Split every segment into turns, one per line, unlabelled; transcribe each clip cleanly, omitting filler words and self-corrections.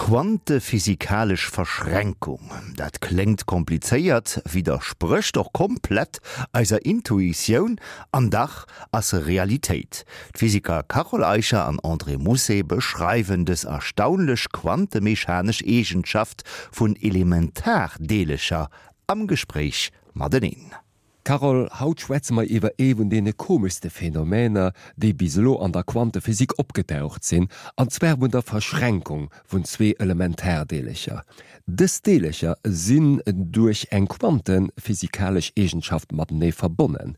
Quantephysikalesch Verschränkung, dat kléngt komplizéiert, widdersprécht och komplett eiser Intuitioun, an dach ass se Realitéit. D'Physiker Carole Eicher an André Mousset beschreiwen dës erstaunlech quantemechanesch Eegenschaft vun Elementardeelecher am Gespréich mateneen.
Carole, haut schwätze mer iwwer ee vun deene komeschste Phänomener, déi bis elo an der Quantephysik opgedaucht sinn, an zwar vun der Verschränkung vun zwee Elementardeelercher. Dës Deelercher sinn duerch eng quantephysikalesch Eegenschaft matenee verbonnen,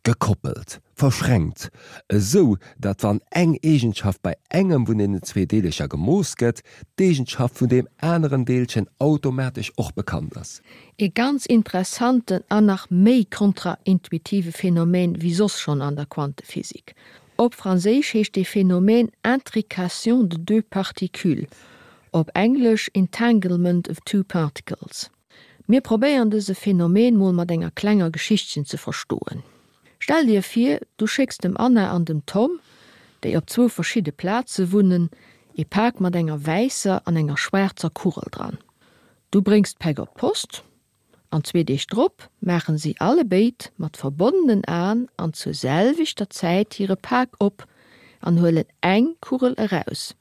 gekoppelt, verschränkt, esou datt wann eng Eegenschaft bei engem vun deenen zwee Deelercher gemooss gëtt, d'Eegenschaft vun deem aneren Deelchen automatesch och bekannt ass.
Ee ganz interessanten an nach méi kontraintuitive Phänomen wéi soss schonn an der Quantephysik. Op Franséisch heescht dee Phänomen Intrication de deux particules, op Englesch Entanglement of two particles. Mir probéieren dëse Phänomen mol mat enger klenger Geschichtchen ze verstoen. Stell dir vir, du schécks dem Anna an dem Tom, déi op zwou verschidde Plaze wunnen, ee Pak mat enger wäisser an enger schwaarzer Kugel dran. Du bréngs d'Päck op d'Post, an zwee Deeg drop maachen si allebéid mat verbonnenen Aen an zur selwechter Zäit hire Pak op an huelen eng Kugel eraus.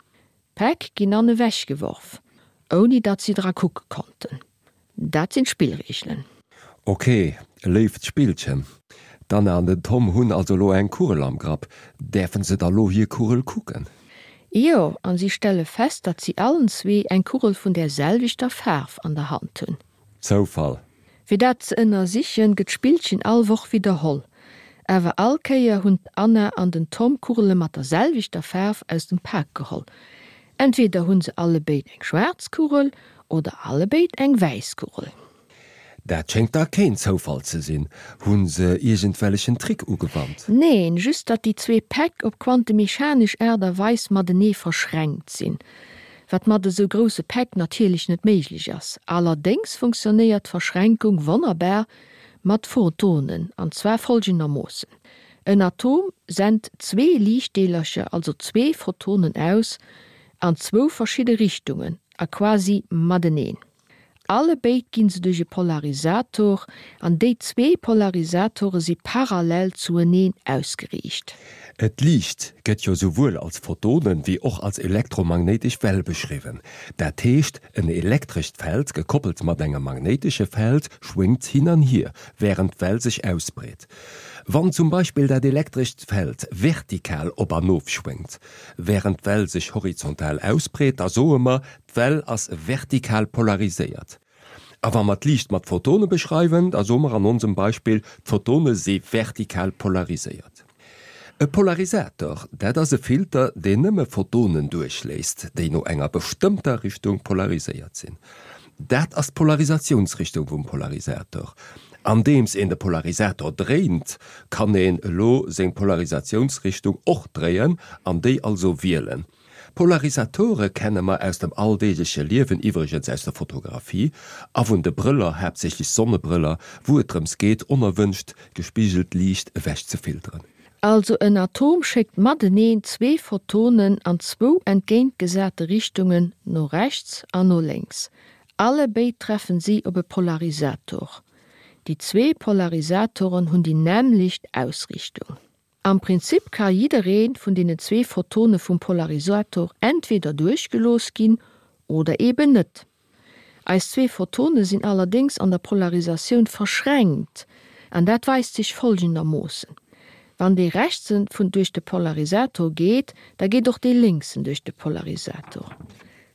D'Päck ginn an ewech geworf, ouni datt si dra kucke konnten. Dat sinn d'Spillreegelen.
Ok, léift Spillchen. D'Anna an den Tom hunn also elo eng Kugel am Grapp. Däerfen se da lo hir Kugel kucken?
Jo, an si stelle fest, datt si allen zwee eng Kugel vun där selwechter Faarf an der Hand hunn.
Zoufall.
Fir dat ze ënnersichen, gëtt d'Spillchen all Woch widderholl. Awer all Kéier hunn d'Anna an den Tom Kugele mat der selwechter Faarf aus dem Pak geholl. Entweder hunn se allebéid eng schwaarz Kugel oder allebéid eng wäiss Kugel.
Dat schéngt da keen Zoufall ze sinn. Hu se iergendwellechen Trick ugewannt?
Neen, just datt déi zwee Päck op quantemechanesch Aart a Weis matenee verschränkt sinn, wat mat esou grousse Päck natierlech net méiglech ass. Allerdéngs funktionéiert d'Verschränkung wonnerbar mat Photonen, an zwar folgendermoossen, En Atom sent zwee Liichtdeelercher, also zwee Photonen aus, an zwou verschidde Richtungen a quasi mateneen. Allebéid ginn se duerch e Polarisator, an déi zwee Polarisatore si parallel zueneen ausgeriicht.
D'Liicht gëtt jo souwuel als Photonen wéi och als elektromagnéitesch Well beschriwwen. Dat heescht, en elektrescht Feld gekoppelt mat engem magnéitesche Feld schwéngt hin an hier, wärend d'Well sech ausbreet. Wann zum Beispill dat elektrescht Feld vertikal op an of schwéngt, wärend d'Well sech horizontal ausbreet, da soe mer, D'Well ass vertikal polariséiert. A wa mer d'Liicht mat Photone beschreiwen, da soe mer an onsem Beispill, d'Photone si vertikal polariséiert. E Polarisator, dat ass e Filter, deen nëmme Photonen duerchléisst, déi no enger bestëmmter Richtung polariséiert sinn. Dat ass d'Polarisatiounsrichtung vum Polarisator. Andeems een de Polarisator dréint, kann een elo seng Polarisatiounsrichtung och dréien an déi also wielen. Polarisatore kenne mer aus dem alldeegleche Liewen, iwwregens aus der Fotografie, a vun de Brëller, haaptsächlech Sonnebrëller, wou et drëms geet, onerwënscht gespigelt Liicht ewech ze filteren.
Also en Atom schéckt mateneen zwee Photonen an zwou entgéintgesate Richtungen, no rechts an no lénks. Allebéid treffen si op e Polarisator. Déi zwee Polarisatoren hunn déi nämmlecht Ausrichtung. Am Prinzip ka jidderee vun deenen zwee Photone vum Polarisator entweder duerchgelooss ginn oder eben net. Eis zwee Photone sinn allerdéngs an der Polarisatioun verschränkt an dat weist sech folgendermoossen, Wann dee rechtsen vun duerch de Polarisator geet, da geet och dee lénksen duerch de Polarisator.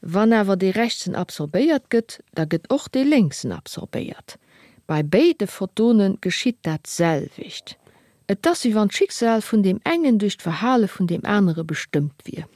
Wann awer dee rechtsen absorbéiert gëtt, da gëtt och dee lénksen absorbéiert. Bei béide Photone geschitt dat selwecht. Et ass wéi wann d'Schicksal vun deem engen duerch d'Verhale vun deem anere bestëmmt wier.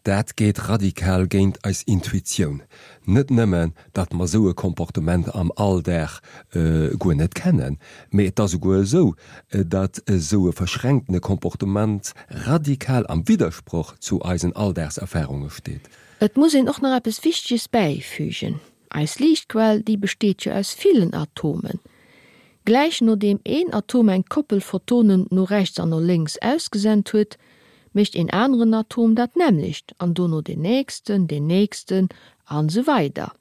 Dat geet radikal géint eis Intuitioun. Net nëmmen, datt mer esou e Comportement am Alldag guer net kennen, mee et ass esouguer esou, datt esou e verschränktene Comportement radikal am Widdersproch zu eisen Alldagserfarunge steet.
Et muss een och nach eppes Wichteges bäifügen, Eis Liichtquell, déi besteet jo aus villen Atomen. Gläich nodeem een Atom eng Koppel Photonen no rechts an no lénks ausgesent huet, mécht een aneren Atom dat nämmlecht an dono deen nächsten, deen nächsten. An esou weider.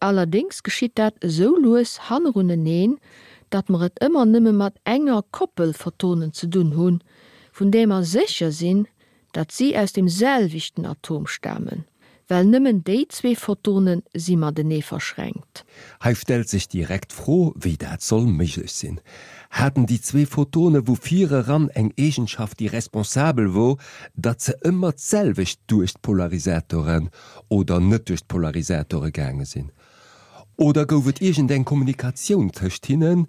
Allerdéngs geschitt dat esou lues hanneruneneen, datt mer et ëmmer nëmme mat enger Koppel Photonen ze dunn hunn, vun där mer sécher sinn, datt si aus dem selwechten Atom stamen, well nëmmen déi zwee Photone si matenee verschränkt.
Hei stellt sech direkt d'Fro, wéi dat soll méiglech sinn. Haten déi zwee Photone vu vireran eng Eegenschaft, déi responsabel wor, datt se ëmmer d'selwecht duerch d'Polarisatoren oder net duerch d'Polarisatore gaange sinn? Oder gouf et iergendeng Kommunikatioun tëscht hinnen,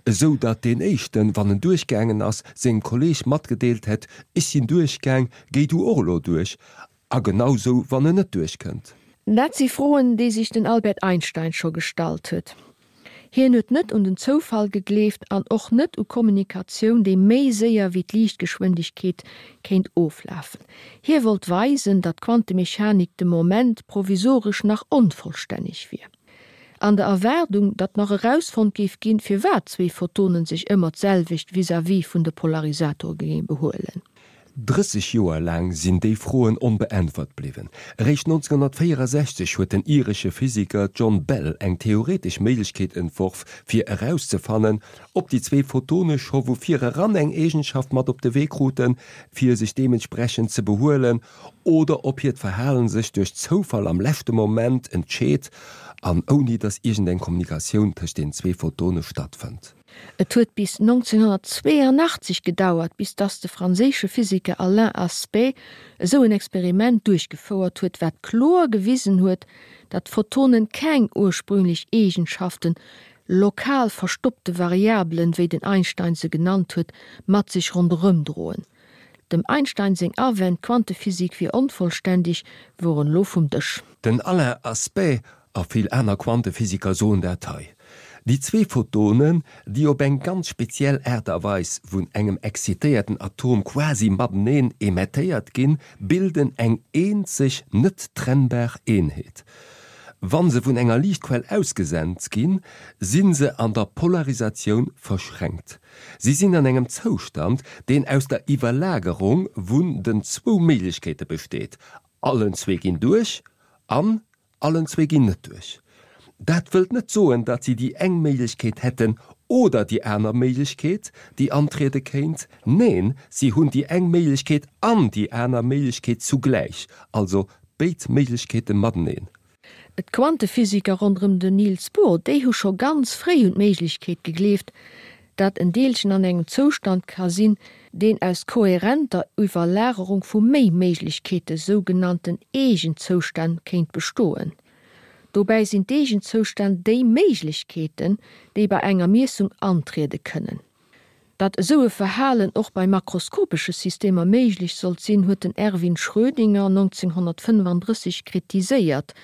esou datt deen éischten, wann en duerchgaangen ass, sengem Kolleeg matgedeelt hätt, Ech sinn duerchgaang, géi du och elo duerch? A genau sou, wann en net duerchkënnt.
Dat si Froen, déi sech den Albert Einstein scho gestallt huet. Hien huet net un den Zoufall gegleeft an och net u Kommunikatioun, déi méi séier wéi d'Liichtgeschwindegkeet kéint oflafen. Hie wollt weisen, datt d'Quantemechanik de Moment provisoresch nach onvollstänneg wier. An der Erwaardung, datt nach erausfonnt géif ginn, firwat zwee Photonen sech ëmmer d'selwecht vis-à-vis vun de Polarisatore géinge behuelen.
30 Joer laang sinn déi Froen onbeäntwert bliwwen. Eréischt 1964 huet den iresche Physiker John Bell eng theoretesch Méiglechkeet entworf, fir erauszefannen, ob déi zwee Photone scho vu vireran eng Eegenschaft mat op de Wee kruten, fir sech deementsprechend ze behuelen, oder ob hiert Verhalen sech duerch Zoufall am leschte Moment entscheet an ouni datt iergendeng Kommunikatioun tëscht den zwee Photone stattfënnt.
Et huet bis 1982 gedauert, bis dass de franséische Physiker Alain Aspect esou en Experiment duerchgefouert huet, wat kloer gewisen huet, datt Photonen keng ursprünglech Eegenschaften, lokal verstoppte Variabelen, wéi den Einstein se genannt huet, mat sech ronderëmdroen. Dem Einstein seng Awänn, d'Quantephysik wier onvollständeg, woren elo vum Dësch.
Den Alain Aspect A vill aner Quantephysiker soen dat hei. Déi zwee Photonen, déi op eng ganz speziell Aart a Weis vun engem exzitéierten Atom quasi mateneen emettéiert ginn, bilden eng eenzeg, net trennbar Eenheet. Wa se vun enger Liichtquell ausgesent ginn, si se an der Polarisatioun verschränkt. Si sinn an engem Zoustand, deen aus der Iwwerlagerung vun den zwou Méiglechkeete besteet, allen zwee ginn duerch an Allen zwee ginn net duerch. Dat wëllt net soen, datt si déi eng Méiglechkeet hätten oder déi aner Méiglechkeet, déi antriede kéint. Neen, si hunn déi eng Méiglechkeet an déi aner Méiglechkeet zugläich, also béid Méiglechkeete mateneen.
D'Quantephysiker ronderëm den Niels Bohr, déi hu scho ganz fréi un d'Méiglechkeet gegleeft, datt en Deelchen an engem Zoustand ka sinn, deen aus kohärenter Iwwerlagerung vu méi Méiglechkeete, sougenannten Eegenzoustänn, kéint bestoen. Dobäi sinn d'Eegenzoustänn déi Méiglechkeeten, déi bei enger Miessung antriede kënnen. Datt esou e Verhalen och bei makroskopesche Systemer méiglech sollt sinn, huet den Erwin Schrödinger 1935 kritiséiert,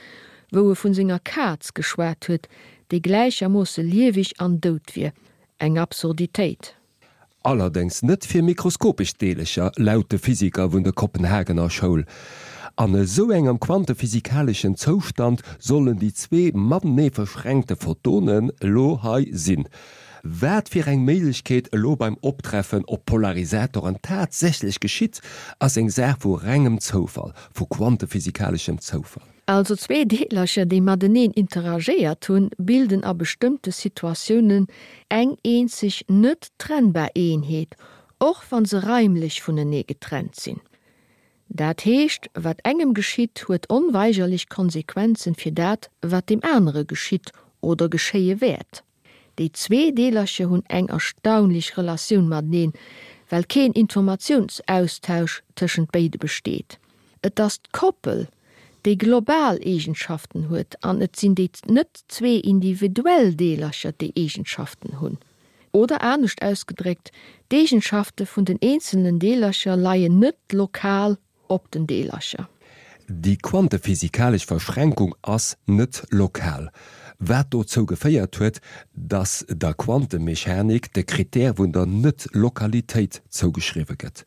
wou e vun senger Kaz geschwat huet, déi gläichermoosse lieweg an dout wier. Eng Absurditéit.
Allerdéngs net fir mikroskopesch Deelecher, laut de Physiker vun der Kopenhagener Schoul. An esou engem quantephysikaleschen Zoustand sollen déi zwee matenee verschränkte Photonen elo hei sinn. Wat fir eng Méiglechkeet elo beim Optreffen op Polarisatoren tatsächlech geschitt, ass eng Saach vu rengem Zoufall, vu quantephysikaleschem Zoufall.
Also zwee Deelercher, déi mateneen interagéiert hunn, bilden a bestëmmte Situatiounen eng eenzeg net trennbar Eenheet, och wa se raimlech vunenee getrennt sinn. Dat heescht, wat engem geschitt, huet onweigerlech Konsequenzen fir dat, wat deem anere geschitt oder geschéie wäert. Déi zwee Deelercher hunn eng erstaunlech Relatioun mateneen, well keen Informatiounsaustausch tëschent béide besteet. Et ass d'Koppel, déi global Eegenschaften huet an et sinn déi net zwee individuell Deelercher, déi Eegenschaften hunn. Oder anescht ausgedréckt, d'Eegenschafte vun den eenzelnen Deelercher leien net lokal op den Deelercher.
Déi quantephysikalesch Verschränkung ass net lokal, wat dozou geféiert huet, datt der Quantemechanik de Krittär vun der Net-Lokalitéit zougeschriwwe gëtt.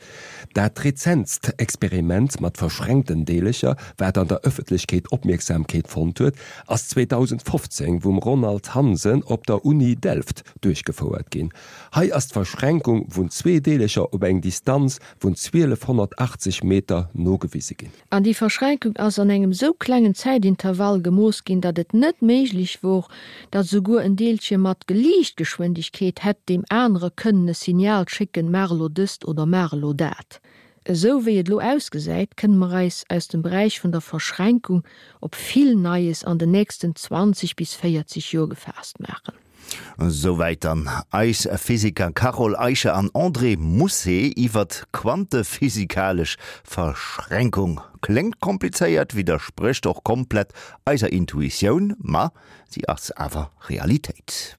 Dat rezentst Experiment mat verschränkten Deelercher, wat an der Ëffentlechkeet Opmierksamkeet fonnt huet, ass 2015 vum Ronald Hansen op der Uni Delft duerchgefouert ginn. Hei ass d'Verschränkung vun zwee Deelercher op eng Distanz vun 1280 Meter nogewise ginn.
An déi Verschränkung. Verschränkung ass an engem sou klengen Zäitintervall gemooss ginn, datt et net méiglech wor, datt esouguer en Deelche mat Liichtgeschwindegkeet hätt deem anere kënnen e Signal schécken, maach elo dëst oder maach elo dat. Esou wéi et elo ausgesäit, kënne mer eis aus dem Beräich vun der Verschränkung op vill Neies an den nächsten 20 bis 40 Joer gefaasst maachen.
Souwäit dann eis Physiker Carole Eicher an André Mousset iwwert d'quantephysikalesch Verschränkung. Kléngt komplizéiert, widdersprécht och komplett eiser Intuitioun, ma si ass awer Realitéit.